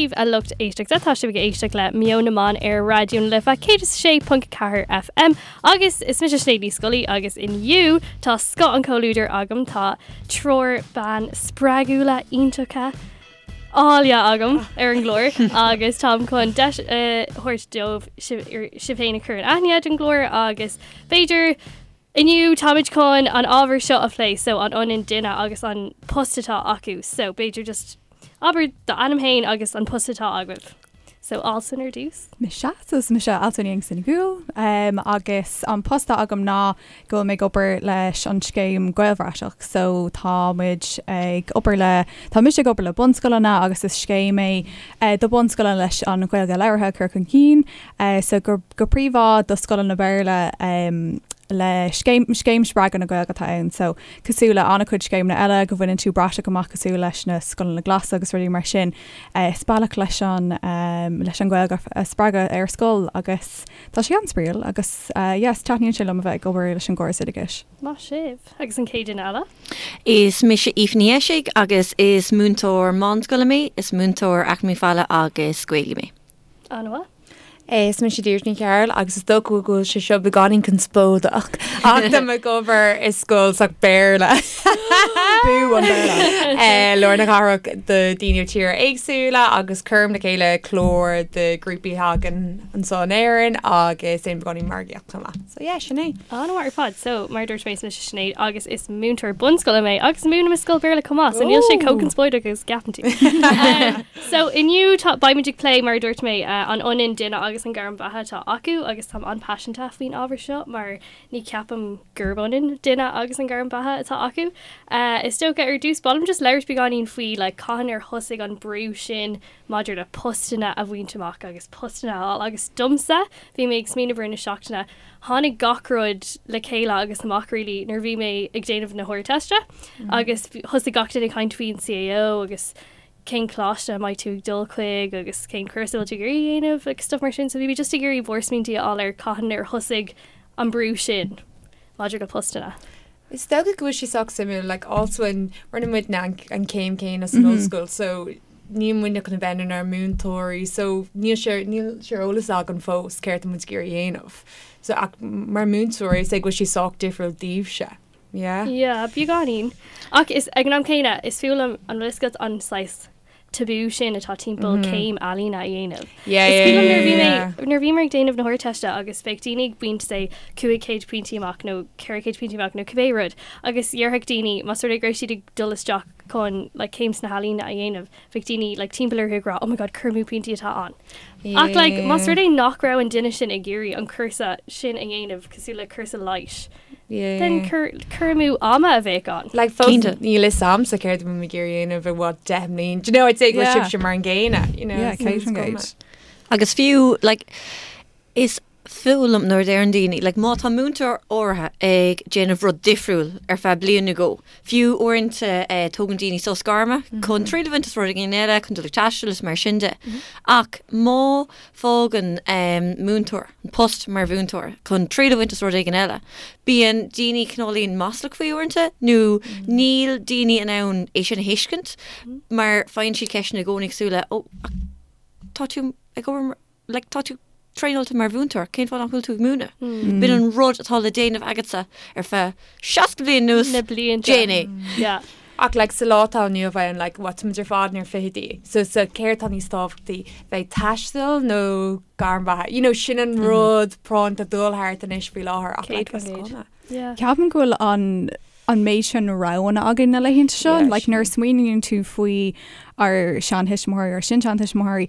daoibh a lucht éisteachta, tá sibh ag éisteacht le Meon na mBan ar Raidió na Life 106.4 FM agus is mise Sinéad Ní Scolaí agus inniu tá scoth an chomhluadair agam, tá triúr bean spreagúla iontacha áille agam ar an gclár agus táim chun deis a thabhairt dóibh sibh féin a chur in aithne don gclár agus b'fhéidir Inniu táimid chun an ábhar seo a phlé so an ionann duine agus an post atá acu so b'fhéidir just abair d'ainm féin agus an post atá agaibh. So Alswyn ar dtús. Mise, so is mise Alswyn Youngson Gould um, agus an post atá agam ná go bhfuil mé ag obair leis an scéim Gaelbhratach so tá muid ag obair le tá mise ag obair le bunscoileanna agus is scéim é uh, do bunscoileanna leis an Ghaeilge labhartha a chur chun cinn uh, so go go príomha do scoileanna Béarla um, le scéim, scéim spreagadh na Gaeilge atá ann. So, cosúil le an-chuid scéimeanna eile go bhaineann tú bratach amach cosúil leis na scoileanna glasa agus rudaí mar sin, eh, is bealach leis an, um, leis an Ghaeilge a spreagadh ar scoil agus tá sé an-spraíúil agus eh, yes, taitníonn sé liom a bheith ag obair leis an gcóras oideachais. Maith sibh. Agus an chéad duine eile? Is mise Aoife Ní Eisigh agus is múinteoir meánscoile mé, is múinteoir Eacnamaíocht Bhaile agus Gaeilge mé. An-mhaith. Is mise Deirdre Ní Chearúil agus is dócha go bhfuil sé seo beagáinín conspóideach ach tá mé ag obair i scoil sách Béarla. Bú an Béarla. Eh, Lár na cathrach do daoine ó tíortha éagsúla agus cuirim le chéile clár do grúpaí a thagann anseo in Éirinn agus déanaim beagáinín margaíocht chomh maith. So yeah, sin é. An-mhaith ar fad. So, mar a dúirt mé, is mise Sinéad agus is múinteoir bunscoile mé agus múinim i scoil Béarla chomh maith, so níl sé chomh conspóideach agus a gceapann tú. Um, So, inniu tá, beimid ag plé, mar a dúirt mé, an ionann duine agus an gairm bheatha atá acu agus táim an-paiseanta faoin ábhar seo mar ní ceapaim gurb ionann duine agus an gairm beatha atá acu. Is dócha, ar dtús, ba mhaith liom just labhairt beagáinín faoi like cathain ar thosaigh an brú sin maidir le postanna a bhaint amach agus postanna a fháil agus domsa, bhí mé ag smaoineamh i rith na seachtaine, tháinig gach rud le chéile agus amach really nuair a bhí mé ag déanamh na hArdteiste agus thosaigh gach duine ag caint faoin CAO agus cén coláiste a mbeidh tú ag dul chuig agus cén cúrsa a bhfuil tú ag iarraidh a dhéanamh agus stuff mar sin. So bhí mé just ag iarraidh bhur smaointí a fháil ar cathain ar thosaigh an brú sin maidir le postanna. Is dócha go bhfuil sé sách suimiúil, like Alswyn, rinne muidne an, an céim céanna san ollscoil, so níl muidne chun a bheith inár múinteoirí, so níl sé, níl sé ar eolas againn fós céard tá muid ag iarraidh a dhéanamh. So ach mar múinteoirí, is é go bhfuil sé sách difriúil daoibhse. Yeah. Yeah, beagáinín. Ach is, ag an am céanna, is fuath liom an bhfuil a fhios agat an saghas tabú sin atá timpeall céim ealaíne a dhéanamh. Yeah, Is yeah, cuimhin liom nuair a bhí yeah, mé, yeah. nuair a bhíomar ag déanamh na hArdteiste agus bheadh daoine ag baint say 500 pointí amach nó 400 pointí amach nó cibé rud agus dhéarfadh daoine más rud é go raibh siad ag dul isteach chun like céim sna healaíona a dhéanamh, bheadh daoine like timpeall orthu ag rá oh my god cur amú pointí atá ann. Ach like más rud é nach raibh an duine sin ag iarraidh an cúrsa sin a dhéanamh cosúil le cúrsa leighis, Then cur amú ama a bheadh ann. Like fós níl fhios a'msa céard a bhfuil mé ag iarraidh a dhéanamh i bhfad 10 mbliain. Do you know, I'd say go bhfuil sibhse mar an gcéanna, you know. Yeah, 100%. Agus fiú, like, is fuath liom nuair a deireann daoine, like, má tá múinteoir áirithe ag déanamh rud difriúil ar feadh bliain nó dhó, fiú uaireanta eh, tógann daoine sos gairme chun triail a bhaint as rud éigin eile, chun dul ag taisteal is mar sin de. Ach má fágann múinteoir an post mar mhúinteoir chun triail a bhaint as rud éigin eile. Bíonn daoine cineáilín maslach faoi uaireanta nó níl daoine in ann é sin a thuiscint mar faigheann siad ceisteanna i gcónaí cosúil le 'Ó, ach tá tú ag obair mar, like, tá tú traenáilte mar mhúinteoir, cén fáth nach bhfuil tú ag múineadh? B'in an rud atá le déanamh agatsa ar feadh 60 bliain anuas, Na blianta. déan é. Yeah. Ach like sa lá atá inniu ann like what tá muid ar fad inár bhfichidí so so céard tá níos tábhachtaí bheith ag taisteal nó gairm bheatha you know sin an rud práinn atá ag dul thart anois faoi láthair ach like is cuma. Yeah. Ceapaim go bhfuil an an méid sin roghanna againn na laethanta seo Yeah, like nuair a smaoiníonn tú faoi ár seantuismitheoirí ár sin-seantuismitheoirí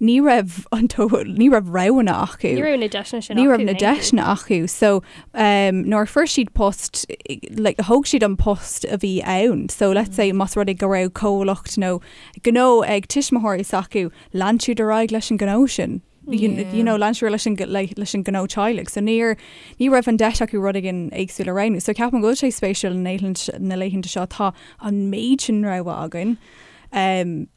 ní raibh an tó ní raibh roghanna acu. Ní raibh na deiseanna sin Ní acu raibh na in aon chor. deiseanna acu. So um, nuair a fuair siad post, like, thóg siad an post a bhí ann. So let's say más rud é go raibh comhlacht nó gnó ag tuismitheoirí s'acu, lean siad ar aghaidh leis an gnó sin. You, Yeah. you know, lean siad leis an, le, leis an gnó teaghlaigh. So níor, ní raibh an deis acu rud éigin éagsúil a roghnú. So ceapaim go bhfuil sé spéisiúil na laethanta, na laethanta seo tá an méid sin rogha againn. Um,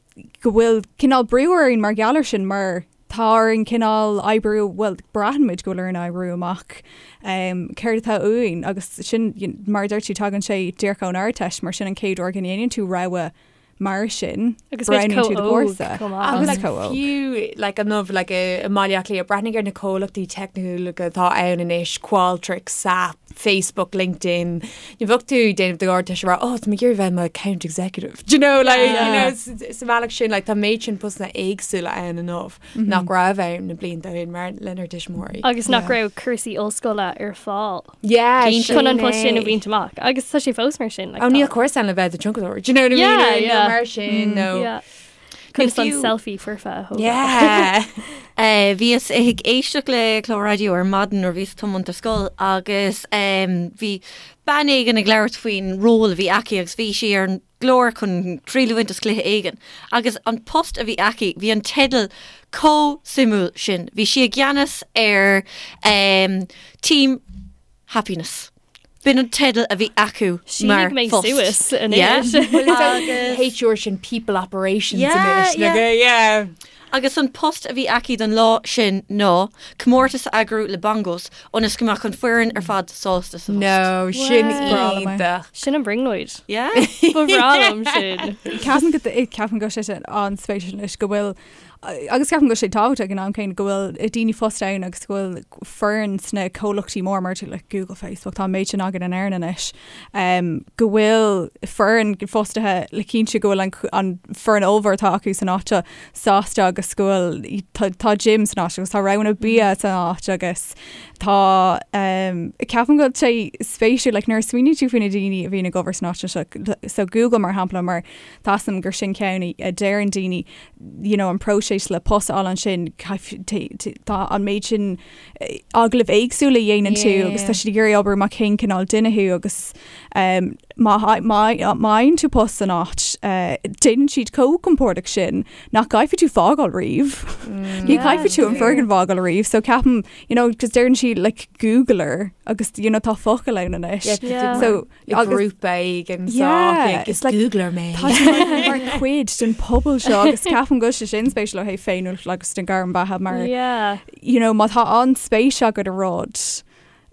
go bhfuil cineál brú orainn mar gheall air sin mar tá orainn cineál oibriú, bhuel, braitheann muid go bhfuil orainn oibriú amach um, céard atá uainn agus sin, mar a deir tú, tagann sé díreach ón Ardteist mar sin an chéad uair go ndéanann tú rogha. Mar sin, Agus muid roghnaíonn chomh tú do óg chúrsa. chomh maith. Agus Like, chomh óg. fiú like, inniu like, i mBaile Átha Cliath, breathnaigh ar na comhlachtaí teicniúla atá ann anois, Qualtrics, SAP, Facebook, LinkedIn. Ní bheadh tú ag déanamh do Ardteist ag rá, oh, tá mé ag iarraidh bheith i mo account executive. Do you know, like, you Yeah. know, s- sa bhealach sin, like, tá méid sin postanna éagsúla ann inniu nach raibh ann na blianta ó shin mar lenár dtuismitheoirí. Agus nach raibh cúrsaí ollscoile ar fáil. Yeah, Chun an post sin a é. bhaint amach. Agus tá sé fós mar sin. Like, Oh, níl tá- cúrsa ann le bheith i do thionscadóir. Do you know what I mean? Yeah, Or, nó yeah. mar sin, nó. Yeah. Conas an fiú- selfie foirfe a thógáil. Yeah. Eh, Bhíos ag éisteacht le clár raidió ar maidin nuair bhíos ag tiomáint ar scoil agus em, bhí bean éigin ag labhairt faoin ról a bhí aici agus bhí sí ar an gclár chun triail a bhaint as cluiche éigin agus an post a bhí aici, bhí an teideal chomh suimiúil sin. Bhí sí i gceannas ar em, Team Happiness. B'in an teideal a bhí acu mar Shínigh mé phost. suas Yeah. anois. Well, it's like HR sin people operations Yeah, anois. yeah. Like, yeah. Agus an post a bhí aici don lá sin ná comórtas a eagrú le bongos ionas go mbeadh an foireann ar fad sásta sa phost. No, sin Wow. iontach. Sin an brionglóid. Yeah? Ba bhreá liom sin. Ceapaim go ceapaim go bhfuil sé sin an-spéisiúil anois go bhfuil agus ceapaim go bhfuil sé tábhachtach ag an am céanna go bhfuil daoine fostaithe ann agus go bhfuil foireann sna comhlachtaí mór mar like Google, Facebook, tá an méid sin againn in Éirinn anois, um, go bhfuil foireann fostaithe le cinntiú go bhfuil an, an foireann ollmhór atá acu san áit seo sásta agus go bhfuil tá, tá gym san áit agus tá roghanna bia san áit agus tá um, ceapaim go bhfuil sé spéisiúil like, nuair a smaoiníonn tú faoi na daoine a bhíonn ag obair san áit seo so Google mar shampla mar tá a fhios agam gur sin ceann a deireann daoine you know, an próiseas le post a fháil ansin tá an méid sin agallamh éagsúla a dhéanann tú agus tá siad ag iarraidh obair amach cén cineál duine thú agus um, má fhaigheann tú post san áit uh, déanann siad chomh compordach sin nach gcaithfidh tú fágáil riamh. Mm. Ní chaithfidh tú an foirgneamh a fhágáil riamh, so ceapaim you know, cos deireann siad like Googler agus you know, tá focal ann anois. Yeah. So Agus grúpa éigin yeah, it's like Googler mé. Tá sé mar chuid den pobal seo agus ceapaim go bhfuil sé sin spéisiúil ó thaobh féiniúlacht agus den gairm beatha mar Yeah. you know, má tá an-spéis agat i rud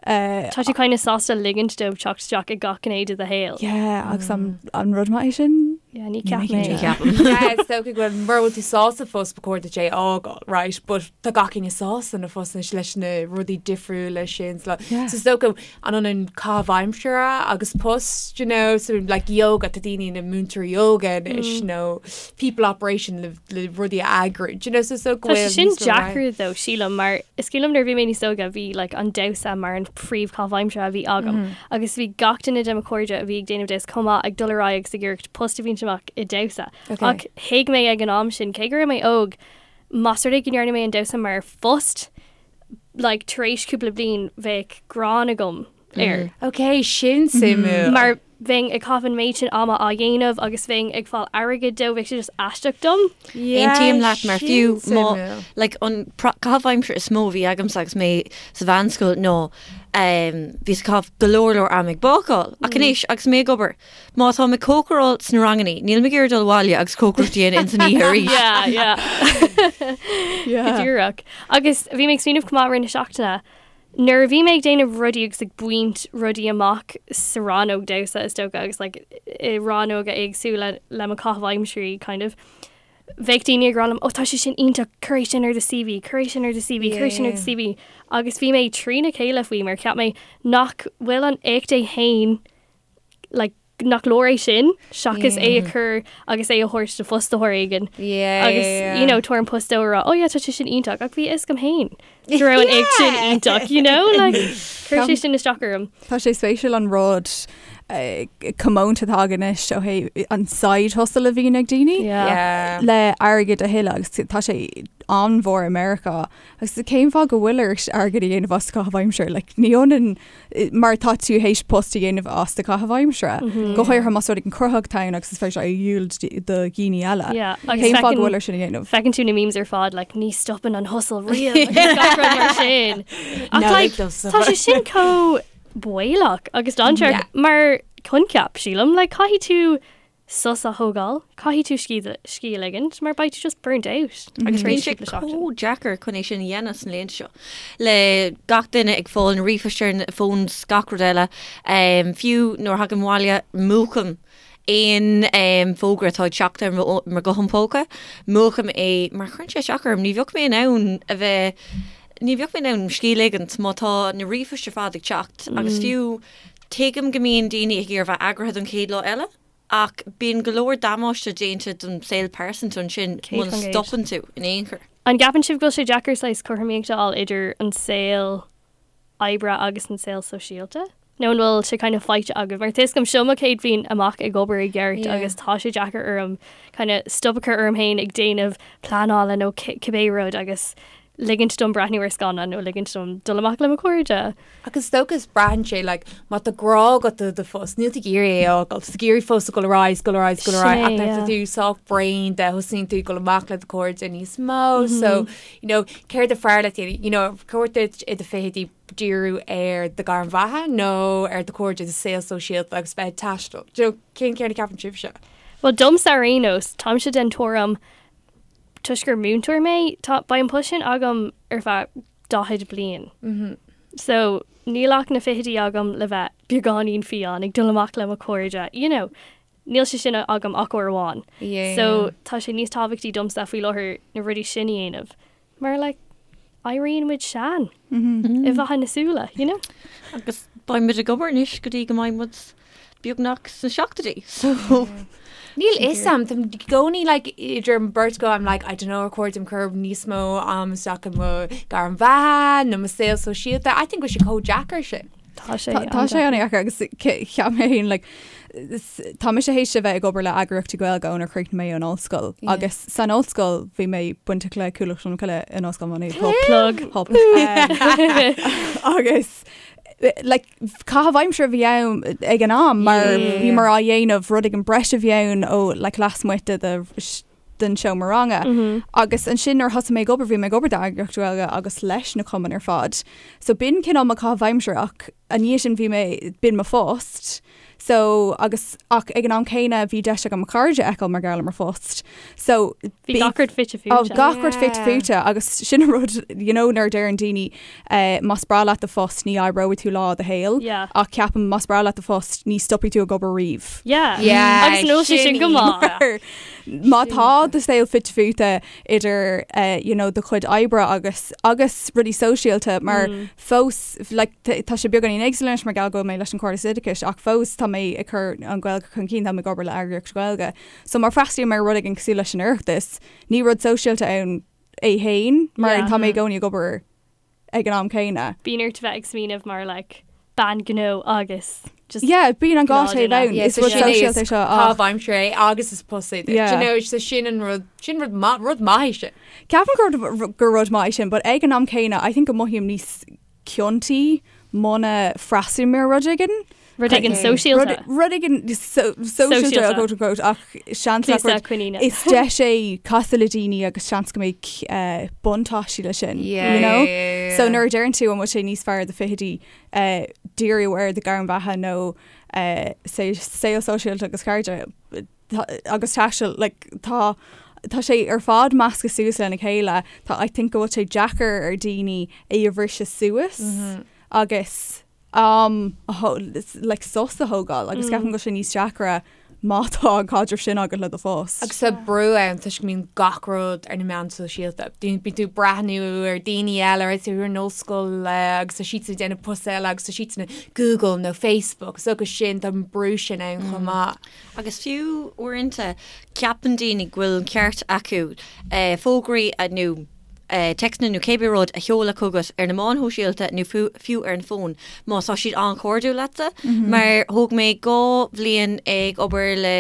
uh, Tá tú kind of sásta ligint dóibh teacht isteach i gach gné de do shaol. yeah, agus an, an rud maith é sin? Yeah, ní Ní ceap cinnte. mé. Ceapaim. Yeah, is dócha go bhfuil mura bhfuil tú sásta fós ba chóir duit é a fhágáil, right? But tá gach éinne sásta ina phost anois leis na rudaí difriúla sin. So Yeah. so is dócha an ionann caitheamh aimsire agus post, you know, so like yoga, tá daoine ina múinteoirí yoga anois nó people operation le, le rudaí a eagrú, do you know, so is dócha go Tá sé bhfuil sin níos mó rogha. deacair though, sílim, mar is cuimhin liom nuair a bhí mé níos óige bhí like, an damhsa mar an phríomhchaitheamh aimsire a bhí agam agus bhí gach duine de mo chairde a bhí ag déanamh damhsa chomh maith ag dul ar aghaidh agus ag iarraidh post a bhaint amach i damhsa. Okay. Ach thuig mé ag an am sin cé go raibh mé óg más rud é go ndearna mé an damhsa mar phost like, tar éis cúpla bliain bheadh gráin agam air. Ok, sin suimiúil. Mar bheinn ag caitheamh an méid sin ama á dhéanamh agus bheinn ag fáil airgid dó, bheadh sé just aisteach dom. Yeah, Aontaím leat mar sin fiú má suimiúil. like, an pro- caitheamh aimsire is mó a bhí agamsa agus mé sa mheánscoil ná um, bhíos ag caitheamh go leor leor am ag bácáil. Ach anois agus mé ag obair, má tá mé ag cócaráil sna rangannaí, níl mé ag iarraidh dul abhaile agus cócaireacht a dhéanamh ins an oíche arís. Yeah, yeah. Go díreach. Agus bhí mé ag smaoineamh chomh maith i rith na seachtaine, nuair a bhí mé ag déanamh rudaí agus ag baint rudaí amach sa rannóg damhsa is dócha agus like, i rannóga éagsúla le mo chaitheamh aimsirí kind of, bheadh daoine ag rá liom, oh tá sé sin iontach, cuir é sin ar do CV, cuir é sin ar do CV, cuir é sin ar do CV. Agus bhí mé trína chéile faoi mar cheap mé nach bhfuil an éacht é féin like, nach leor é sin seachas é a chur agus é a thabhairt do fhostaitheoir éigin. Agus you know, tabhair an post dó a rá, oh yeah, tá sé sin iontach, ach bhí a fhios agam féin go raibh an éacht sin iontach, you know, like, chuir sé sin isteach orm. Tá sé spéisiúil an rud comónta atá againn anois ó thaobh an side hustle a bhíonn ag daoine le airgead a thuilleadh agus tá sé an-mhór i Meiriceá agus cén fáth go bhfuil ort airgead a dhéanamh as caitheamh aimsire? Like, ní ionann mar tá tú théis post a dhéanamh as do chaitheamh aimsire. Go háirithe más rud éigin cruthaitheach atá ann agus is féidir é a dhíol do dhaoine eile. Yeah, agus Cén fáth go feiceann- bhfuil air sin a dhéanamh? Feiceann tú na memes ar fad, like, ní stopann an hustle riamh agus gach rud mar sin. Ach No, like, it doesn't. tá sé sin chomh baolach agus dainséarach Yeah. mar coincheap, sílim, like, caithfidh tú sos a thógáil, caithfidh tú scíth scíth a ligint mar beidh tú just burnt out. Agus tar bíonn éis sé cúpla seachtain. chomh deacair chun é sin a dhéanamh sna laethanta seo. Le gach duine ag fáil na ríomhphoist ar na phones gach rud eile, fiú nuair a thagaim abhaile múchaim Aon fógra atá ag teacht ar mo ghuthán póca, múchaim é mar cuireann sé isteach orm. Ní bheadh mé in ann a bheith, ní bheadh mé in ann scíth a ligint má tá na ríomhphoist ar fad ag teacht agus fiú tuigim go mbíonn daoine ag iarraidh bheith eagraithe don chéad lá eile ach bíonn go leor damáiste déanta don saol pearsanta ansin muna stopann tú in aon chor. An gceapann sibh go bhfuil sé deacair saghas cothromaíocht a fháil idir an saol oibre agus an saol sóisialta? Nó an bhfuil sé kind of faighte agaibh? Mar tá a fhios agam seo mo chéad bhliain amach ag obair i gceart agus tá sé deacair orm kind of stop a chur orm féin ag déanamh pleanála nó cibé rud agus ligint dom breathnú ar scannán nó ligint dom dul amach le mo chairde. Agus is dócha is braitheann sé like má tá grá agat do do phost níl tú ag iarraidh é a fhágáil, tá tú ag iarraidh fós a dhul ar aghaidh, dul ar aghaidh, dul ar aghaidh ach nuair atá tú sách bréan de thosaíonn tú ag dul amach le do chairde níos mó so you know céard is fearr leat you know cóir duit i do fichidí díriú ar do ghairm bheatha nó ar do chairde, do saol sóisialta agus bheith ag taisteal. Do you know, cén ceann a ceapann sibhse? Bhuel, domsa ar aon nós, táimse den tuairim, toisc gur múinteoir mé, tá, beidh an post sin agam ar feadh 40 bliain. So, níl ach na fichidí agam le bheith beagáinín fiáin, ag dul amach le mo chairde, you know, níl sé sin agam ach uair amháin. So, tá sé níos tábhachtaí domsa faoi láthair na rudaí sin a dhéanamh. Mar like, éiríonn muid sean i bhfaiteadh na súile, you know? Agus beidh muid ag obair anois go dtí go mbeidh muid beagnach sna seachtóidí, so. Níl fhios a'm, táim i gcónaí like idir an beirt go I'm like I don't know ar chóir dom cur níos mó am isteach i mo gairm bheatha nó mo saol sóisialta. I think go bhfuil sé chomh deacair sin. Tá sé Tá sé an-deacair agus cheap mé féin like, tá mise théis a bheith ag obair le eagraíochtaí Gaeilge ónar chríochnaigh mé an ollscoil agus san ollscoil bhí mé bainteach le Cuallacht Cholmcille in Ollscoil Mhá Nuad. Plug. Hop. Agus like, caitheamh aimsire a bhí ann ag an am mar bhíomar á dhéanamh rud éigin breise a bhí ann ó like, lasmuigh de de den seomra ranga. Agus ansin nuair a thosaigh mé ag obair, bhí mé ag obair d'eagraíocht Ghaeilge agus leis na cumainn ar fad. So b'in cineál mo chaitheamh aimsire ach i ndiaidh sin bhí mé, b'in mo phost. So agus ach ag an am céanna bhí deis agam mo chairde a fheiceáil mar gheall ar mo phost. So Bhí gach rud fite fuaite. Oh, gach rud fite fuaite agus sin an rud you know nuair a deireann daoine eh, más breá leat do phost ní oibreoidh tú lá i do shaol. Yeah. Ach ceapaim más breá leat do phost ní stopfaidh tú ag obair riamh. Yeah. Yeah, Agus an bhfuil sé sin go maith? Má tá do saol fite fuaite idir eh, you know, do chuid oibre agus agus rudaí sóisialta mar fós like, tá sé beagáinín éagsúil anois mar gheall go bhfuil mé leis an Chomhairle Oideachais ach fós tá mé ag cur an Ghaeilge chun cinn, tá mé ag obair le eagraíocht Ghaeilge. So má fhreastalaím ar rud éigin cosúil leis an Oireachtas, ní rud sóisialta ann é féin mar tá mé i gcónaí ag obair ag an am céanna. Bíonn ort bheith ag smaoineamh mar like bean gnó agus just Yeah, bíonn an gá taobh ann. Is rud sóisialta é seo ach. Caitheamh aimsire é agus is post é duit. Yeah. You know, so sin an rud, sin rud maith, rud maith é sin. Ceapaim gur gur rud maith é sin, but ag an am céanna, I think go mothaím níos ciontaí muna freastalaím ar rud éigin. Rud éigin sóisialta. Rud éigin sóisialta, quote unquote, ach seans nach rud. Coiníne. Is deis é casadh le daoine agus seans go mbeidh buntáistí leis sin, you know? So nuair a deireann tú an bhfuil sé níos fearr do fichidí díriú ar do ghairm bheatha nó saol sóisialta agus cairde agus taisteal, like, tá tá sé ar fad measctha suas lena chéile. Tá I think go bhfuil sé deacair ar daoine é a bhriseadh suas agus am like sos a thógáil agus ceapaim go bhfuil sé níos deacra má tá an caidreamh sin agat le do phost. Agus tá brú ann toisc go mbíonn gach rud ar na meáin sóisialta. Bíonn tú ag breathnú ar daoine eile ar tú ar an ollscoil agus tá siadsan ag déanamh post eile agus tá siadsan ag Google nó Facebook so agus sin tá an brú sin ann chomh maith. Agus fiú uaireanta ceapann daoine go bhfuil an ceart acu fógraí nó téacsanna nó cébí rud a sheoladh chugat ar na meáin shóisialta nó fiú ar an bhfón má tá siad an-chairdiúil leatsa. Mar thóg mé 2 bhliain ag obair le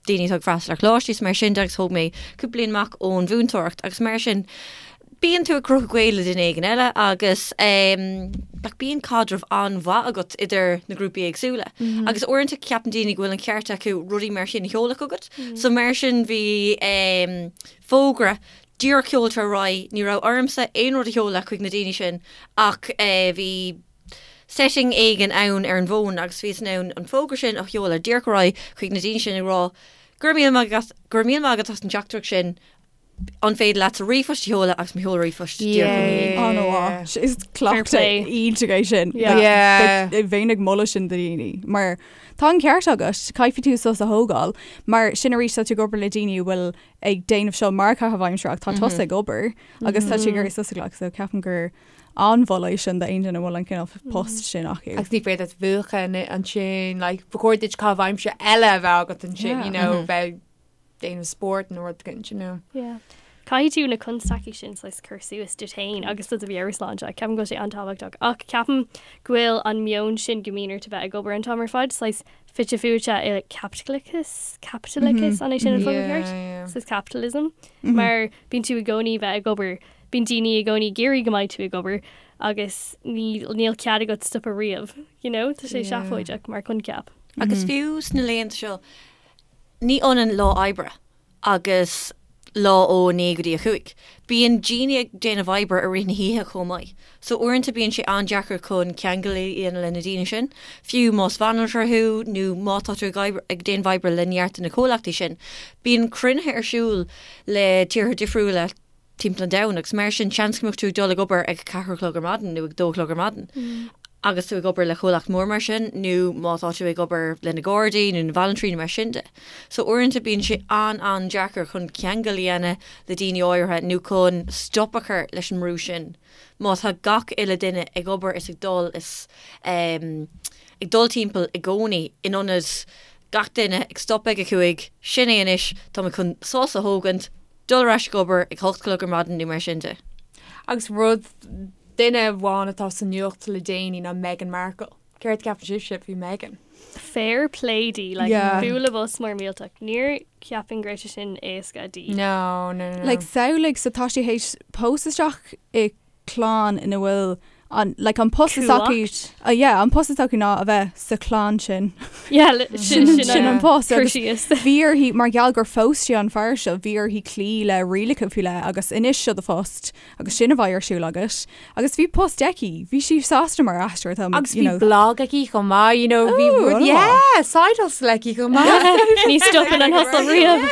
daoine atá ag freastal ar choláistí is mar sin de agus thóg mé cúpla bliain amach ón mhúinteoireacht agus mar sin bíonn tú ag cruthú gaol le duine éigin eile agus like bíonn caidreamh an-mhaith agat idir na grúpaí éagsúla. Agus uaireanta ceapann daoine go bhfuil an ceart acu rudaí mar sin a sheoladh chugat. So mar sin bhí fógra díreach seolta ar aghaidh, ní raibh ormsa aon rud a sheoladh chuig na daoine sin ach bhí setting éigin ann ar an bhfón agus bhíos in ann an fógra sin a sheoladh díreach ar aghaidh chuig na daoine sin ag rá go raibh míle maith agat, go raibh míle maith agat as an teachtaireacht sin, an féidir leat do ríomhphost a sheoladh agus mo sheol ríomhphost díreach ina dhiaidh. Oh no, is Fair cleachtadh play. iontach é sin. Yeah. Bheinn ag moladh sin do dhaoine mar. Tá an ceart agat, caithfidh tú sos a thógáil, mar sin arís tá tú ag obair le daoine a bhfuil ag déanamh seo mar chaitheamh aimsire ach tá tusa ag obair agus tá tú ag iarraidh sos a ghlacadh so ceapaim gur an-mholadh é sin d'aon duine a bhfuil an cineál post sin acu. Agus ní féidir leat mhúchadh ansin, like, ba chóir duit caitheamh aimsire eile a bheith agat ansin, you know, bheith déanamh spóirt nó rud éigin, you know. Yeah. Caithfidh tú na constaicí sin saghas cur suas duit féin agus do do mheabhairshláinte. Ceapaim go bhfuil sé an-tábhachtach. Ach ceapaim go bhfuil an meon sin go mbíonn ort a bheith ag obair an t-am ar fad saghas fite fuaite i caipitleachas, caipitleachas, an é sin an focal ceart? Saghas capitalism. Mar bíonn tú i gcónaí bheith ag obair, bíonn daoine i gcónaí ag iarraidh go mbeidh tú ag obair agus níl cead agat stopadh riamh, you know? Tá sé seafóideach mar choincheap. Agus fiú sna laethanta seo, Ní ionann lá oibre agus lá ó 9 go dtí 5. Bíonn daoine ag déanamh oibre i rith na hoíche chomh maith. So uaireanta bíonn sé an-deacair chun ceangal a dhéanamh le na daoine sin, fiú más banaltra thú nó má tá tú ag oibre, ag déanamh oibre le neart de na comhlachtaí sin. Bíonn cruinnithe ar siúl le tíortha difriúla timpeall an domhain agus mar sin seans go mbeadh tú ag dul ag obair ag a ceathair a chlog ar maidin nó ag dó a chlog ar maidin agus tú ag obair le comhlacht mór mar sin nó má tá tú ag obair le na Gardaí nó na bhanaltraí nó mar sin de. So uaireanta bíonn sé an-an-deacair chun ceangal a dhéanamh le daoine áirithe nó chun stop a chur leis an mbrú sin má tá gach uile duine ag obair is ag dul is ag dul timpeall i gcónaí in ionad gach duine ag stop ag a cúig, sin é anois, tá mé chun sos a thógaint, dul ar ais ag obair ag hocht a chlog ar maidin nó mar sin de. Agus rud, duine amháin atá sa nuacht le déanaí ná Meghan Markle. Céard a cheapann sibhse faoi Meghan? Fair play di, like, Yeah. bualadh bos mór millteach. Níor cheapfainn go raibh sé sin éasca di. No, no, no. Like, samhlaigh, so tá sí théis pósadh isteach i clann ina bhfuil an like an post is acu Cumhacht. uh, yeah, an post is acu ná a bheith sa chlann sin. Yeah, li- sin Sin sin an post cur agus síos. bhí uirthi mar gheall gur phós sí an fear seo bhí uirthi cloí le rialacha faoi leith agus anois seo do phost agus sin a bheidh ar siúl agat agus bhí post aici bhí sí sásta mar aisteoir tá Agus you bhí know. blog aici chomh maith, you know, bhí Ooh, rud an yeah, side hustle aici chomh maith. Ní stopann an hustle riamh.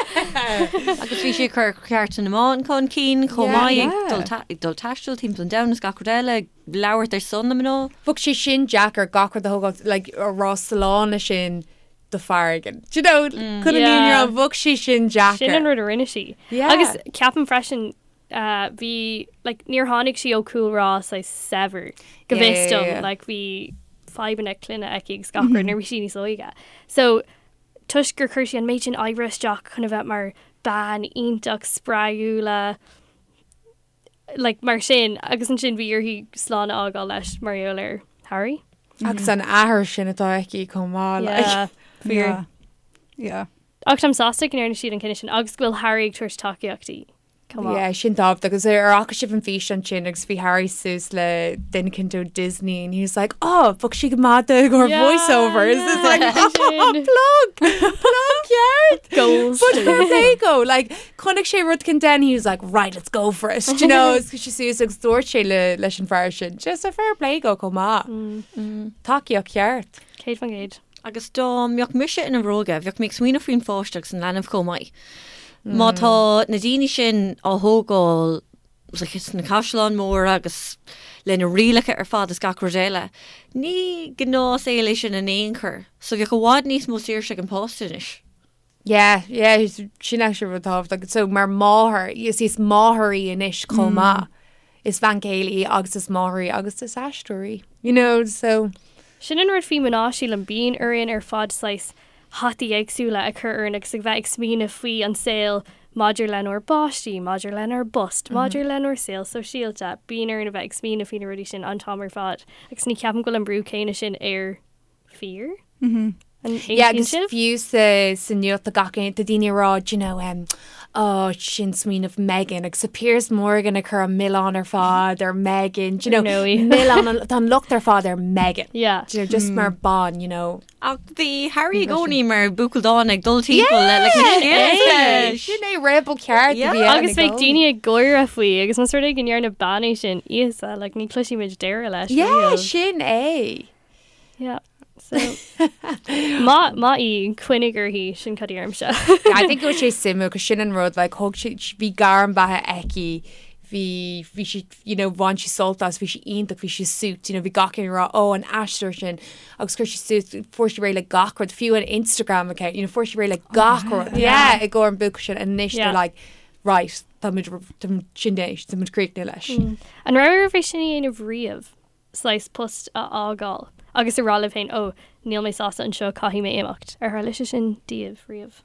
Agus bhí sí ag cur cearta na mban chun cinn chomh maith, ag dul taisteal timpeall an domhain is gach rud eile, ag labhairt ar son na mná. Bheadh sé sin deacair gach rud a thógáil, like, a rá slán leis sin do fear éigin. Do you know, chun an líon rá, bheadh sé sin deacair. Sin an rud a rinne sí. Agus ceapaim freisin, bhí, like, níor tháinig sí ó chúlra saghas saibhir, go bhfios dom, like, bhí fadhbanna clainne aici agus gach rud nuair a bhí sí níos óige. So, toisc gur chuir sí an méid sin oibre isteach chun a bheith mar bean iontach spreagúla like mar sin agus ansin bhí uirthi slán a fhágáil leis mar gheall ar Harry. Agus an athair sin atá aici chomh maith like. Yeah, fíor. Yeah. Yeah. Ach táim sásta go ndearna siad an cinneadh sin agus go bhfuil Harry ag tabhairt tacaíocht di. Come on. Yeah, sin tábhachtach agus ar fhaca sibh an físeán sin agus bhí Harry suas le duine éicint ó Disney and he was like, oh, bheadh sí go maith do gur Yeah, voiceovers. It's like, yeah, oh, sin. plug, plug ceart. Goals. But fair play dó, like, chonaic sé rud éicint and he was like, right, let's go for it. Do you know, is sé suas agus dúirt sé le, leis an fear sin. Just a fair play dó chomh maith. Tacaíocht cheart. 100%. Agus dá mbeadh mise ina bhróga, bheadh mé ag smaoineamh faoin pháiste agus an leanbh chomh maith. Má tá na daoine sin á thógáil sna caisleáin mhóra agus le na rialacha ar fad is gach rud eile, ní gnáthshaol é sin in aon chor. So bheadh i bhfad níos mó saoirse ag an pháiste anois. Yeah, yeah, sin actually rud tábhachtach. So mar máthair, is is máthair í anois chomh maith. Is bean chéile í agus is máthair í agus is aisteoir í. You know, so. Sin an rud faoi mná, sílim, bíonn orainn ar fad saghas hataí éagsúla a chur orainn agus a bheith ag smaoineamh faoi an saol maidir lenár bpáistí, maidir lenár bpost, maidir lenár saol sóisialta. Bíonn orainn a bheith ag smaoineamh faoi na rudaí sin an t-am ar fad agus ní cheapaim go bhfuil an brú céanna sin ar fir. An Yeah, aontaíonn agus sibh? fiú sa sa nuacht tá gach aon tá daoine ag rá, do you know, um, oh, sin smaoineamh Meghan agus tá Piers Morgan ag cur an milleán ar fad ar Meghan, do you know, Ar ndóigh. milleán an- tá an locht ar fad ar Meghan. Yeah. Do you know, just mar bean, you know. Ach bhí Harry i gcónaí mar buachaill dána ag dul timpeall le like, na scéalta leis. Sin é rebel ceart a Yeah. bhí ann Agus i bheadh gcónaí. daoine ag gáire faoi agus más rud é go ndearna bean é sin Íosa, like, ní chloisfimid deireadh leis. Yeah, riamh. sin é. Yeah. So, maith maith í, coinnigh uirthi, sin cad a deirimse. I think go bhfuil sé suimiúil, cos sin an rud, like, thug sé, bhí gairm beatha aici, Bhí, bhí sí, you know, bhain sí sult as, bhí sí iontach, bhí sí suits, you know, bhí gach éinne ag rá, oh, an aisteoir sin, agus chuir sí suas, fuair sí réidh le gach rud, fiú an Instagram account, you know, fuair sí réidh le gach rud, yeah, i gcomhair an buachaill sin, and anois they're like, right, tá muid, tá muid, sin é, tá muid críochnaithe leis. An raibh oraibh é sin a dhéanamh riamh, saghas post a fhágáil agus a rá libh féin, oh, níl mé sásta anseo, caithfidh mé imeacht. Ar tharla sé sin daoibh riamh?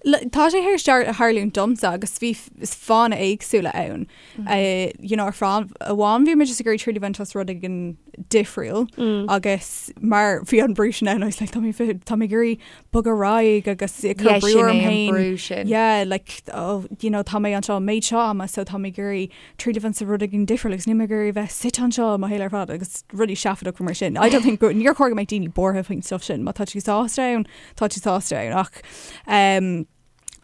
Tá sé théis tarlúint domsa agus bhí fáthanna éagsúla ann. You know, ar fáth amháin bhí mé just ag iarraidh triail a bhaint as rud éigin difriúil agus mar bhí an brú sin ann, I was like, tá mé tá mé ag iarraidh bogadh ar aghaidh agus ag cur brú orm féin. Yeah, like, oh, you know, tá mé anseo an méid seo ama so tá mé ag iarraidh triail a bhaint as rud éigin difriúil agus níl mé ag iarraidh bheith suite anseo mo shaol ar fad agus rudaí seafóideacha mar sin. I don't think go, níor chóir go mbeadh daoine buartha faoin stuff sin, má tá tú sásta ann, tá tú sásta ann ach um,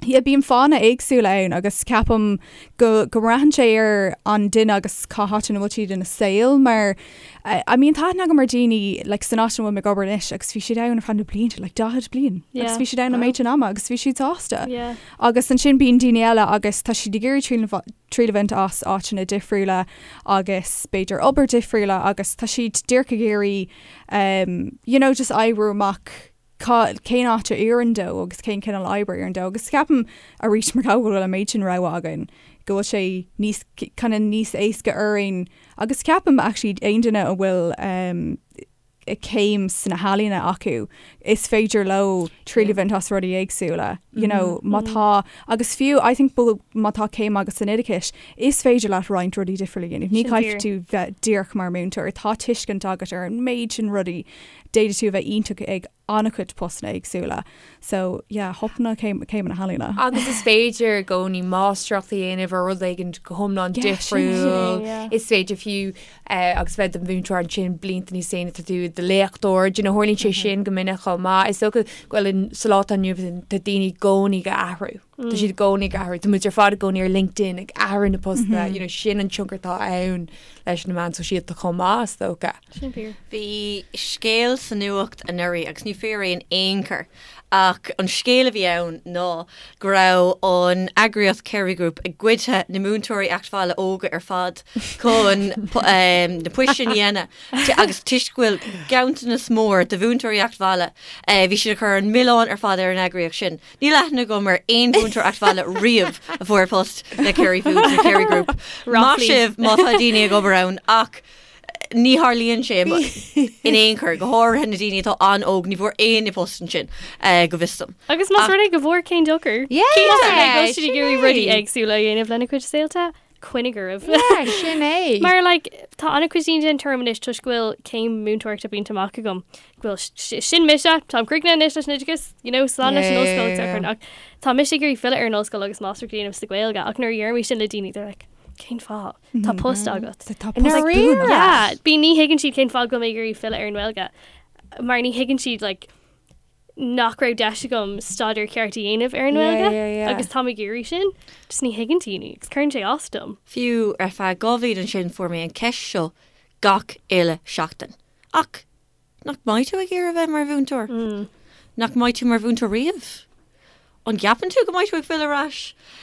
yeah, bíonn fáthanna éagsúla ann agus ceapaim go, go mbraitheann sé ar an duine agus cá háit ina bhfuil siad ina saol mar uh, I mean tá aithne agam ar daoine like, san áit ina bhfuil mé ag obair anois agus bhí siad ann ar feadh na blianta like 40 bliain yeah. agus bhí siad ann an méid sin ama agus bhí siad sásta. Yeah. Agus ansin bíonn daoine eile agus tá siad ag iarraidh triail triail a bhaint as áiteanna difriúla agus b'fhéidir obair difriúla agus tá siad díreach ag iarraidh um, you know, just oibriú amach cá, cén áit a oireann dó agus cén cineál oibre a oireann dó agus ceapaim arís mar go bhfuil an méid sin rogha againn go bhfuil sé níos kind of níos éasca orainn agus ceapaim actually aon duine a bhfuil um, céim sna healaíona acu is féidir leo triail a bhaint as rudaí éagsúla you know má tá agus fiú I think má tá céim agat san oideachas is féidir leat roinnt rudaí difriúla a dhéanamh. Ní caithfidh tú bheith díreach mar múinteoir, tá tuiscint agat ar an méid sin rudaí, d'fhéadfadh tú a bheith iontach ag an-chuid postanna éagsúla. So yeah, thop na céimeanna healaíona. Agus is féidir i gcónaí máistreacht a dhéanamh ar rud éigin go hiomlán difriúil. Is féidir fiú eh, agus bheith i do mhúinteoir ansin blianta níos déanaí tá tú i do léachtóir, do you know, tharlaíonn sé sin go minic chomh maith. Is dócha go bhfuil sa lá atá inniu tá daoine i gcónaí ag athrú. Tá siad i gcónaí ag athrú. Tá muid ar fad i gcónaí ar LinkedIn ag athrú na postanna, you know, sin an tionchar atá ann leis na meáin sóisialta chomh maith, is dócha. Sin fíor. Bhí scéal sa nuacht anuraidh agus ní fíor é in aon chor ach an scéal a bhí ann ná go raibh an eagraíocht Kerry Group ag goid na múinteoirí Eachtbhaile óga ar fad chun na poist sin a dhéanamh agus toisc go bhfuil ganntanas mór de mhúinteoirí Eachtbhaile bhí siad ag cur an milleán ar fad ar an eagraíocht sin. Níl aithne agam ar aon mhúinteoir Eachtbhaile riamh a fuair post le Kerry Foods nó Kerry Group. Maith sibh má tá daoine ag obair ann ach ní tharlaíonn sé in aon chor, go háirithe na daoine atá an-óg, ní bhfuair éinne post ansin go bhfios dom. Agus más rud é go bhfuair cén dochar? Yeah! Más rud é go bhfuil siad ag iarraidh rudaí éagsúla a dhéanamh lena gcuid saolta, coinnigh oraibh. Yeah, sin é. Mar like, tá an-chuid daoine den tuairim anois toisc go bhfuil céim múinteoireachta bainte amach agam, go bhfuil sin mise, táim críochnaithe anois leis an oideachas, you know, slán leis an ollscoil yeah, yeah, yeah. ach tá mise ag iarraidh filleadh ar an ollscoil agus máistreacht a dhéanamh sa Ghaeilge ach nuair a deirim sin le daoine they're like, cén fáth? Tá post agat. Tá post buan. Yeah, bí ní thuigeann siad cén fáth go bhfuil mé ag iarraidh filleadh ar an nGaeilge mar ní thuigeann siad like, nach raibh deis agam staidéar ceart a dhéanamh ar an nGaeilge agus táim ag iarraidh sin, just ní thuigeann daoine agus cuireann sé as dom. Fiú ar feadh 2 bhliain ansin fuair mé an ceist seo gach uile seachtain. Ach nach mbeidh tú ag iarraidh a bheith mar mhúinteoir? Nach mbeidh tú mar mhúinteoir riamh? An gceapann tú go mbeidh tú ag filleadh ar ais?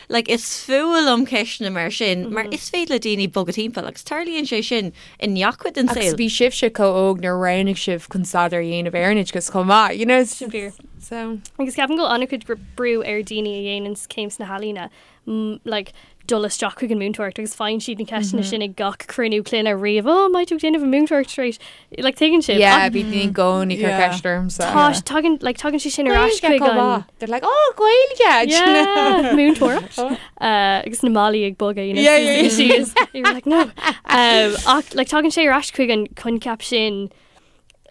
Like, is fuath liom ceisteanna mar sin, mar is féidir le daoine bogadh timpeall agus tarlaíonn sé sin i ngach cuid den Agus saol. bhí sibhse chomh óg nuair a roghnaigh sibh chun staidéar a dhéanamh ar an oideachas chomh maith, you know, Sin fíor. so. Agus ceapaim go bhfuil an-chuid brú ar daoine a dhéanann céim sna healaíona like, dul isteach chuig an múinteoireacht agus faigheann siad na ceisteanna sin ag gach cruinniú clainne riamh, oh, an mbeidh tú ag déanamh an múinteoireacht tar éis, like, tuigeann sibh. Yeah, bhí daoine i gcónaí ag cur ceist ormsa. Tá, tagann, like, tagann sé sin ar ais chuig an... They're like, oh, Gaeilge! Yeah, múinteoireacht. Uh, agus na malaí ag bogadh, you know, Yeah, yeah, yeah. síos. You're like, no. Um, ach, like, tagann sé ar ais chuig an coincheap sin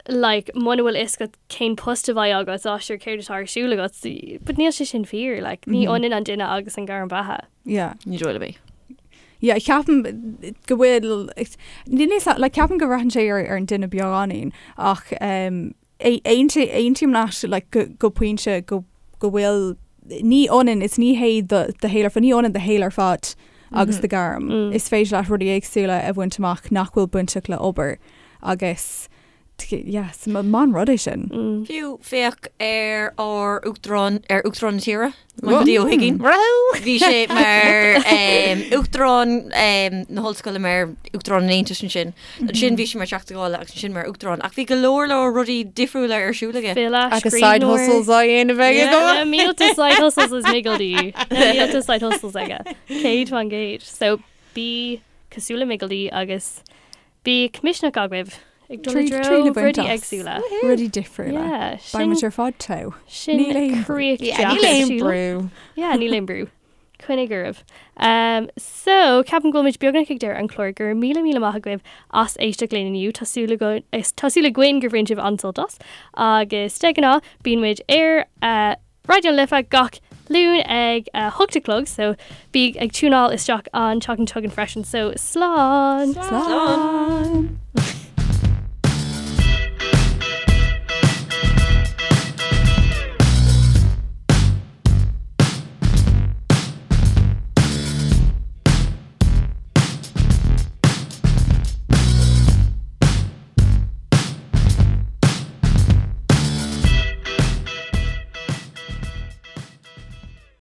like, muna bhfuil fhios agat cén post a bheidh agat, á sure céard atá ar siúl agat, but níl sé sin fíor, like, ní ionann an duine agus an gairm beatha. Yeah. Ní dóigh liom é. Yeah, ceapaim go bhfuil, níl fhios a'm, like, ceapaim go mbraitheann sé ar, ar an duine beagáinín ach um, aontaím leat like, go, go pointe go, go bhfuil, ní ionann, is ní hé do, do shaol ar fad, ní ionann do shaol ar fad agus do ghairm. Is féidir leat rudaí éagsúla a bhaint amach nach bhfuil bainteach le obair agus. Yes, maith an rud é sin. Fiú féach ar ár uachtarán ar uachtarán na tíre, Michael D. Ó hUiginn. Bhí sé mar uachtarán na hollscoile mar uachtarán an Aontais ansin. Ansin bhí sé mar Teachta Dála agus ansin mar uachtarán. Ach bhí go leor leor rudaí difriúla ar siúl aige. File, Agus side scríbhneoir. hustles á dhéanamh aige Yeah, go. na mílte side hustles is Miggledy. Na mílte side hustles aige. 100%. So bí cosúil le Miggledy agus Bíodh misneach agaibh ag dul i Triail dtreo a bhaint rudaí as. éagsúla. Rudaí difriúla. Yeah, Beidh sin muid ar fad togha. sin Níl aon brú. críoch Yeah, deas níl aon sílim. brú. Yeah, níl aon brú. Coinnigh oraibh. Um, so, ceapaim go bhfuil muid beagnach ag deireadh an chláir go raibh míle míle maith agaibh as éisteacht linn inniu. Tá súil againn- is- tá súil againn gur bhain sibh an-sult as. Agus de ghnáth, bíonn muid ar uh, Raidió na Life gach Luan ag 8 a chlog so bí ag tiúnáil isteach an tseachtain seo chugainn freisin so slán! Slán!